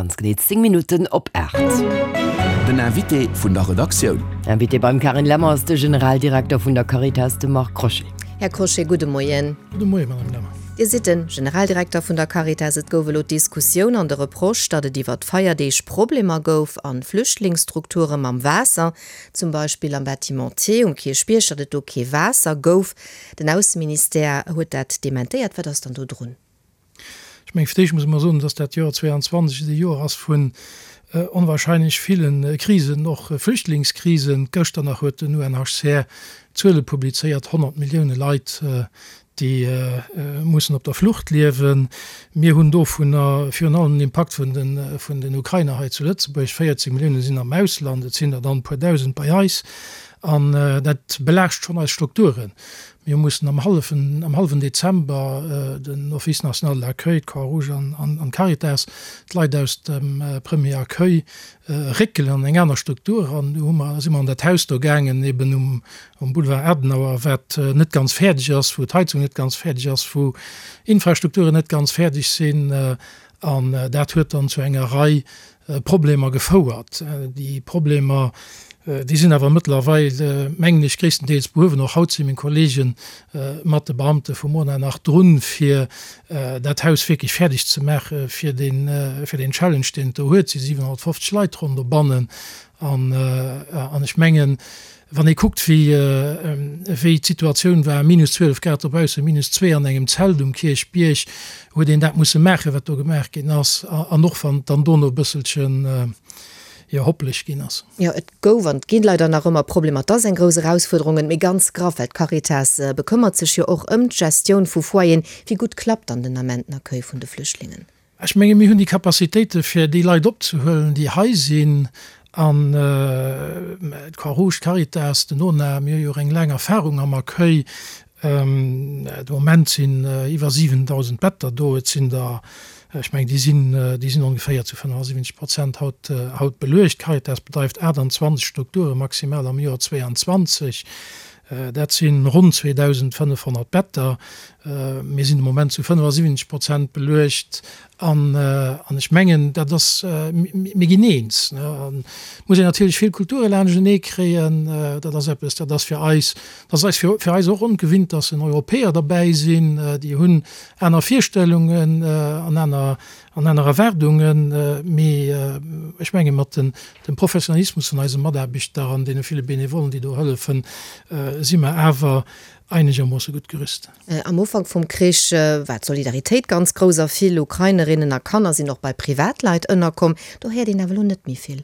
ganz genee 10 Minutten op 8. Den Invité vun der Redaktioun. Invité beim Carine Lemmer ass de Generaldirekter vun der Caritas, de Marc Crochet. Här Crochet, gudde Moien. Gudde Moien, Madame Lemmer. Dir sidd de Generaldirekter vun der Caritas. Et gouf elo d'Diskussioun an de Reproche, datt et iwwer d'Feierdeeg Problemer gouf a Flüchtlingsstrukture mam Waasser, zum Beispill am Bâtiment T um Kierchbierg, datt et do kee Waasser gouf. Den Ausseministère huet dat dementéiert. Wat ass dann do drun? Ech mengen, fir d'éischt muss mer soen, dass dat Joer 22 e Joer ass vun onwahrscheinlech ville Krisen, och Flüchtlingskrisen. Gëschter nach huet den UNHCR Zuele publizéiert, 100 Millioune Leit, déi mussen op der Flucht liewen. Mir hunn dovunner virun allem den Impakt vun den Ukrainer hei zu Lëtzebuerg. 14 Millioune sinn am Ausland, et sinn der dann e puer Dausend bei eis. An dat belaascht schonn eis Strukturen. Mir mussen am hallwen, am hallwen Dezember den Office national de l'accueil, d'Croix-Rouge an d'Caritas, d'Leit aus dem Premier Accueil réckelen an eng aner Struktur. An du hu mer, si mer an dat Haus do gaangen, eben um, um Boulevard Adenauer, wat net ganz fäerdeg ass, wou d'Heizung net ganz fäerdeg ass, wou Infrastrukturen net ganz fäerdeg sinn. An dat huet dann zu enger Rei Problemer gefouert. Déi Problemer, déi sinn awer mëttlerweil, mengen ech, gréisstendeels behuewen. Och haut si meng Kollege mat de Beamte vum ONA nach drun, fir dat Haus wierklech fäerdeg ze maache fir deen, fir deen Challenge, deen et do huet. Et si 750 Leit ronn dobannen. An, an ech mengen, Wann ee kuckt, wéi wéi d'Situatioun war, minus 12 Grad dobaussen, minus zwee an engem Zelt um Kierchbierg, huet een dat musse maachen, wat do gemaach ginn ass, an och wann et dann dono e bësselchen, jo, hoppeleg ginn ass. Jo, et gouf an et gi leider nach ëmmer Problemer. Et ass eng grouss Erausfuerderung, mee ganz graff, well d'Caritas bekëmmert sech jo och ëm d'Gestioun vu Foyeren. Wéi gutt klappt dann den Ament den Accueil vun de Flüchtlingen? Ech menge mir hunn déi Capacitéite fir déi Leit opzehuelen, déi hei sinn. An d'Croix-Rouge, d'Caritas, den ONA, mir hu jo och eng laang Erfahrung am Accueil. De Moment sinn iwwer 7.000 Better do. Et sinn der, ech mengen, déi sinn, déi sinn ongeféier zu 75 Prozent haut, haut beluecht. D'Caritas bedreift 28 Strukture maximal am Joer 22. Dat si ronn 2.500 Better. Mir sinn de Moment zu 75 Prozent beluecht. An ech mengen, dat ass, mir ginn eens. Et muss een natierlech vill Kulture laanschtenee kréien. Dat ass eppes, dat ass fir eis, dat ass eis fir eis och ongewinnt, dass en Europäer derbäi sinn. Déi hunn aner Virstellungen an aner an aner Erwaardungen, mee ech menge mat dem Professionalismus vun eise Mataarbechter an deene ville Benevollen, déi do hëllefen, si mer awer einegermoosse gutt gerüst. Am Ufank vum Krich war d'Solidaritéit ganz grouss a vill Ukrainerinnen a Kanner sinn och bei Privatleit ënnerkomm. Do héiert een awer elo net méi vill.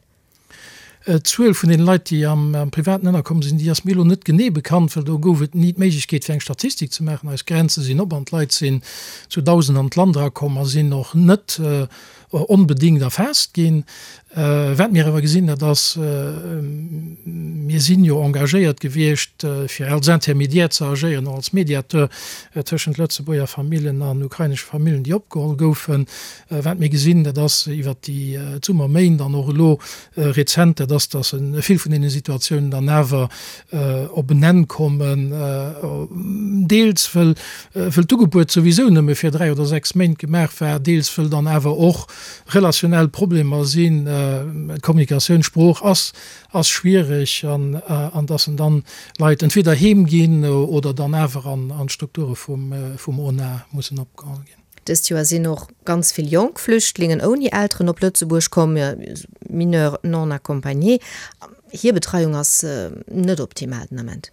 D'Zuel vun deene Leit, déi am Privaten ënnerkomm sinn, déi ass mir elo net genee bekannt, well do gouf et ni d'Méiglechkeet, fir eng Statistik ze maachen. Eis Grenze sinn op an d'Leit sinn zu Dausenden an d'Land erakomm a sinn och net onbedéngt erfaasst ginn. Wat mir awer gesinn, dat ass, mir sinn jo engagéiert gewiescht, fir als Intermédiaire ze agéieren, och als Mediateur tëschent Lëtzebuerger Famillen an ukrainesche Famillen, déi opgeholl goufen. Wat mir gesinn, dat ass iwwert déi Summerméint an och elo rezent, dat ass, datt vill vun deene Situatiounen dann awer op en Enn kommen, deels wëll d'Ugebuet souwisou nëmme fir 3 oder 6 Méint gemaach war, deels wëll dann awer och relationell Problemer sinn, d'Kommunikatioun, d'Sprooch ass schwiereg an datt en dann Leit entweder heem ginn oder dann awer an d'Strukture vum ONA mussen opgeholl ginn. Dëst Joer sinn och ganz vill jonk Flüchtlingen ouni Elteren op Lëtzebuerg komm, Mineurs non accompagnés. Hir Betreiung ass net optimal den Ament.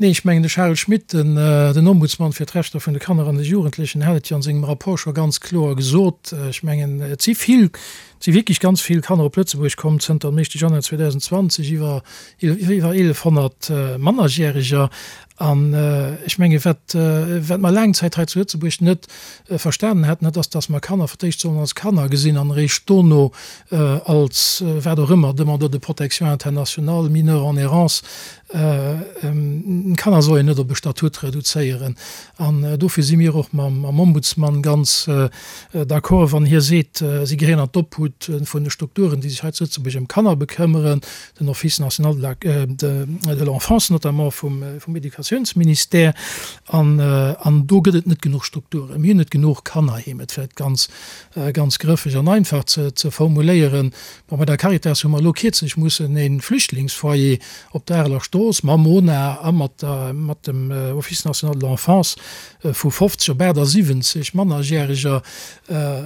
Nee, ech mengen de Charel Schmit, den Ombudsman fir d'Rechter vun de Kanner an de Jugendlechen, hat et jo an sengem Rapport scho ganz kloer gesot. Ech mengen, et si vill, et si wierklech ganz vill Kanner op Lëtzebuerg komm zënter dem éischte Januar 2020, iwwer iwwer 1.100 Mannerjäreger. An ech menge wat wat mer laang Zäit hei zu Lëtzebuerg net verstanen haten, dat ass, datt mer Kanner fir d'éischt sollen als Kanner gesinn an eréischt dono als wat och ëmmer, Demandeur de protection internationale, Mineur en errance. Kanner soll een net op e Statut reduzéieren. An dofir si mir och mam Ombudsman ganz d'accord, wann hie seet, si gehéieren an d'Obhut. Magnitude vun de Strukturen, déi sech hei zu Lëtzebuerg ëm Kanner bekëmmeren, den Office national de la, de l'enfance notamment vum, vum Educatiounsministère. An, an do gëtt et net genuch Strukturen. Mir hunn net genuch Kannerheem, et vläicht ganz, ganz grëffeg an einfach ze, ze formuléieren. Bon, bei der Caritas hu mer elo kierzlech mussen e Flüchtlingsfoyer op der Areler Strooss mam MONA a mat der, mat dem Office national de l'enfance vu 50 op 78 Mannerjäreger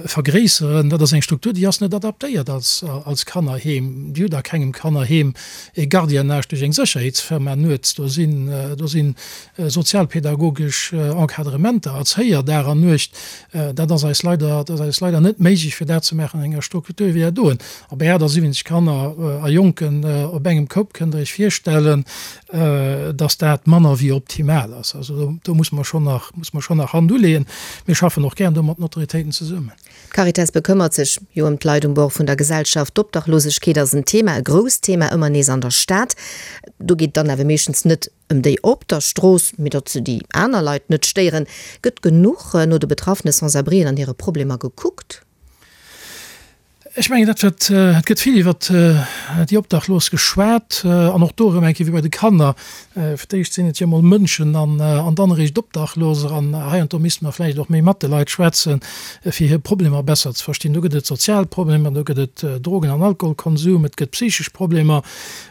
vergréisseren. Dat ass eng Struktur, déi ass net adaptéiert als, als Kannerheem. Déi huet a kengem Kannerheem e Gardiennage duerch eng Sécherheetsfirma nuets. Do sinn, do sinn sozialpädagogesch Encadrementer, Erzéier Dag an Nuecht. Dat ass eis leider, dat ass eis leider net méiglech, fir dat ze maachen an enger Struktur wéi dat doen. A bei 78 Kanner a Jonken op engem Koup kënnt Der Iech virstellen, dass dat manner wéi optimal ass. Also do, do muss mer schonn nach, muss mer schonn nach Hand uleeën. Mir schaffen och gären do mat den Autoritéiten zesummen. D'Caritas bekëmmert sech jo ëm d'Leit um Bord vun der Gesellschaft. D'Obdachlosegkeet ass en Thema, e grousst Thema, ëmmer nees an der Stad. Do geet et dann awer meeschtens net ëm déi op der Strooss, mee datt se déi aner Leit net stéieren. Gëtt genuch no de betraffene Sans-abrien an hire Problemer gekuckt? Ech mengen, dat wat, et gëtt vill iwwert déi Obdachlos geschwat an och do erëm eng Kéier wéi bei de Kanner, fir d'éischt sinn et jo emol Mënschen an dann eréischt Obdachloser. An heiansdo misste mer vläicht och méi mat de Leit schwätzen, fir hir Problemer besser ze verstinn. Do gëtt et sozial Problemer, do gëtt et Drogen an Alkoholkonsum, et gëtt psychesch Problemer.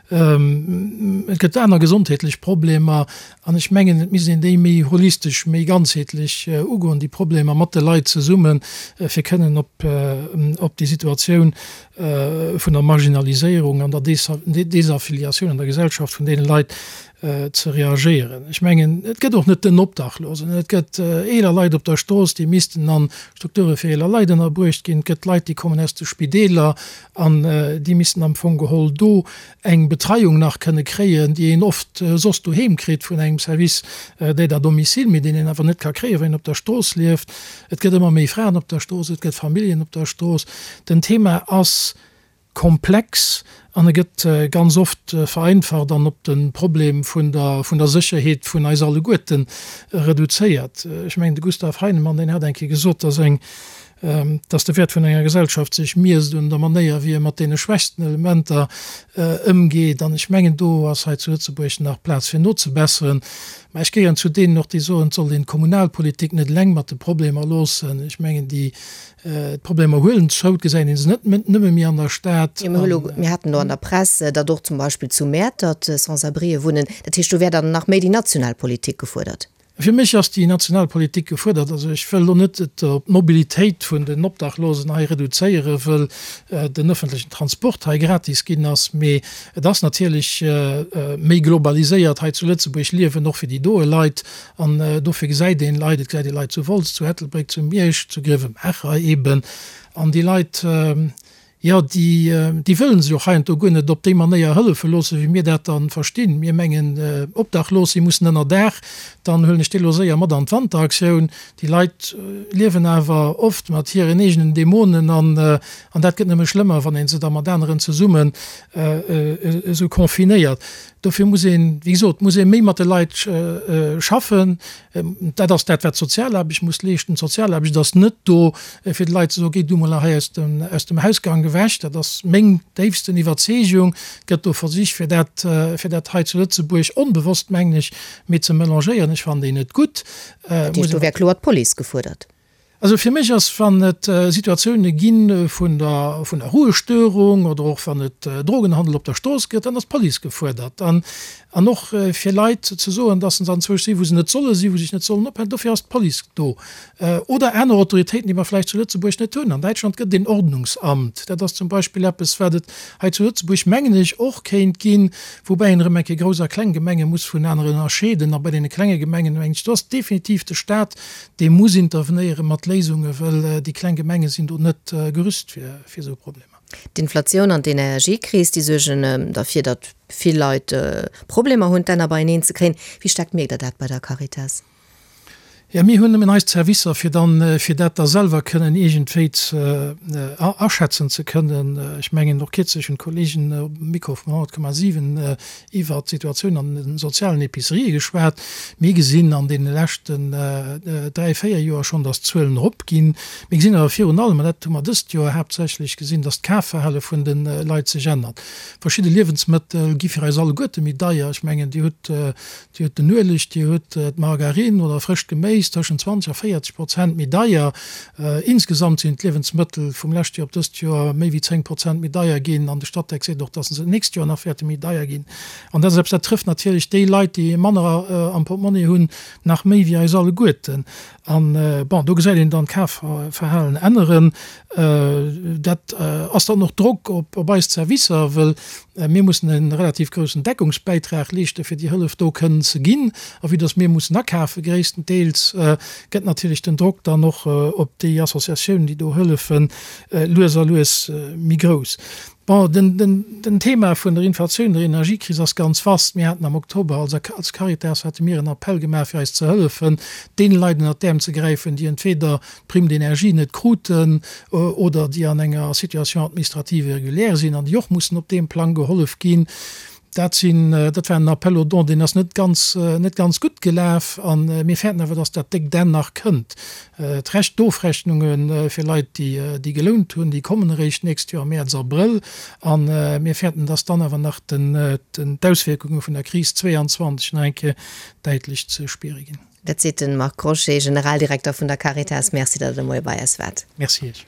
Et gëtt aner gesondheetlech Problemer an ech mengen, et misst een déi méi holistesch, méi ganzheetlech ugoen, déi Problemer mat de Leit zesummen, fir kënnen op op déi Situatioun vun der Marginaliséierung an der Desaffiliatioun an der Gesellschaft vun deene Leit ze reagéieren. Ech mengen, et gëtt och net den Obdachlosen, et gëtt eeler Leit op der Strooss, déi missten a Strukture fir eeler Leit ënnerbruecht ginn, et gëtt Leit, déi kommen aus de Spideeler, An déi missten am Fong geholl do eng Betreiung nach kënne kréien, déi een oft soss doheem kritt vun engem Service d'aide à domicile, mee deen een awer net ka kréien, wann een op der Strooss lieft. Et gëtt ëmmer méi Fraen op der Strooss, et gëtt Familljen op der Strooss. Den Thema ass komplex an e gëtt ganz oft vereinfacht an op de Problem vun der, vun der Sécherheet vun eis alleguerte reduzéiert. Ech mengen, de Gustav Heinemann, deen hat eng Kéier gesot, dass eng dass de Wäert vun enger Gesellschaft sech miesst un der Manéier, wéi e mat deene schwächsten Elementer ëmgeet. An ech mengen, do ass hei zu Lëtzebuerg nach Plaz fir nozebesseren. Mä ech gehéieren zu deenen och, déi soen, et sollt een d'Kommunalpolitik net eleng mat de Problemer loossen. Ech mengen, déi d'Problemer huelen zou, et gesäit ee se net nëmme méi an der Stad. Jo, mir hu lo, mir haten elo an der Press, datt och zum Beispill zu Mäertert Sans-abrien wunnen. Dat heescht, do wär dann nach méi déi national Politik gefuerdert. Fir mech ass déi national Politik gefuerdert. Also ech wëll elo net et op d'Mobilitéit vun den Obdachlosen hei reduzéieren, wëll den öffentlechen Transport hei gratis ginn ass, mee et ass natierlech méi globaliséiert hei zu Lëtzebuerg liewen, och fir déi doe Leit. An dofir gesäit een Leit, et gesäit ee Leit zu Wolz, zu Ettelbréck, zu Miersch, zu Grevenmacher eben. An déi Leit, Jo, déi, déi wëllen sech och heiansdo guer net op déi Manéier hëllefe loossen, wéi mir dat dann verstinn. Mir mengen, Obdachlos si mussen ënner Daach, dann huelen ech déi elo séier mat an d'Wanteraktioun. Déi Leit liewen awer oft mat hiren eegenen Dämonen an, an dat gëtt nëmme schlëmmer, wann ee se da mat aneren zesummen esou confinéiert. Dofir muss een, wéi gesot, muss ee méi mat de Leit schaffen. Dat ass dat, wat d'Sozialaarbecht muss leeschten. D'Sozialaarbecht ass net do, fir de Leit ze soen, Géi du mol hei aus dem, aus dem Hausgank ewech. Dat ass meng déifsten Iwwerzeegung. Et gëtt do Versich, fir dat, fir dat hei zu Lëtzebuerg onbewosst, mengen ech, méi ze melangéieren. Ech fannen déi net gutt. Dat heescht, do wär kloer d'Police gefuerdert? Also fir mech ass, wann et Situatioune gi vun der, vun der Ruhestörung oder och wann et Drogenhandel op der Strooss gëtt, dann ass d'Police gefuerdert. An, an och fir Leit ze soen, dass se anzwousch sinn, wou se net solle sinn, wou se sech net sollen ophalen, dofir ass d'Police do. Oder aner Autoritéiten, déi mer vläicht zu Lëtzebuerg net hunn. An Däitschland gëtt et een Ordnungsamt. Dat ass zum Beispill eppes, wat et hei zu Lëtzebuerg, mengen ech, och kéint ginn, woubäi een erëm eng Kéier grouss a kleng Gemenge muss vun ënnerscheeden. A bei deene klenge Gemengen, mengen ech, do ass definitiv de Stat, Dee muss intervenéiere mat Léisungen, well déi kleng Gemenge sinn do net gerüst fir esou Problemer. D'Inflatioun an d'Energiekris, déi suergen derfir, datt vill Leit Problemer hunn, d'Enner beieneen ze kréien. Wéi staark mierkt Der dat bei der Caritas? Jo, mir hunn nëmmen eis Zerwisser, fir dann, fir dat da selwer kënnen iergendwéi ze aschätzen ze kënnen. Ech mengen, och kierzlech hunn d'Kollegen um Mikro vum 100,7 iwwert d'Situatioun an de sozialen Epicerië geschwat. Mir gesinn an deene leschten dräi, véier Joer schonn, datt d'Zuelen eropginn. Mir gesinn awer virun allem, an dat hu mer dëst Joer haaptsächlech gesinn, datt d'Kafverhale vun de Leit sech ännert. Verschidde Liewensmëttel gi fir eis alleguerte méi deier. Ech mengen, Dir hutt Dir hutt den Ueleg, Dir hutt d'Margarine oder frëscht Geméis tëschent 20 a 40 Prozent méi deier. Insgesamt sinn d'Liewensmëttel vum leschte Joer op dëst Joer méi wéi 10 Prozent méi deier ginn an de Statec seet och, datt se d'nächst Joer nach wäerte méi deier ginn. An dat ass eppes, dat trëfft natierlech déi Leit, déi manner am Portmonni hunn, nach méi wéi eis alleguerten. An, bon, do gesäit een dann d'Kafverhalen änneren. Dat ass dann och Drock op eis Zerwisser, wëll mir mussen e relativ groussen Deckungsbäitrag leeschten, fir déi Hëllef do kënnen ze ginn. A vue dass mir mussen akafe gréisstendeels, gëtt natierlech den Drock dann och op déi Associatiounen, déi do hëllefen, lues a lues méi grouss. Bon, den Thema vun der Inflatioun, der Energiekris ass ganz vast. Mir haten am Oktober als als Caritas hate mir en Appell gemaach fir eis ze hëllefen, deene Leit ënnert d'Äerm ze gräifen, déi entweder d'Prime d'énergie net kruten oder déi an enger Situation administrative irrégulière sinn an déi och mussen op deem Plang gehollef ginn. Dat sinn, dat war en Appel aux dons, deen ass net ganz, net ganz gutt gelaf. A mir fäerten awer, dass dat déckt Enn nach kënnt. D'Recht, d'Ofrechnunge fir Leit, déi, déi gelount hunn, déi kommen eréischt d'nächst Joer am Mäerz, Abrëll. A mir fäerten, dass dann awer nach den, d'Auswierkunge vun der Kris 22 nach eng Kéier däitlech ze spiere ginn. Dat seet de Marc Crochet, Generaldirekter vun der Caritas. Merci, datt Der de Moie bei eis waart. Merci Iech.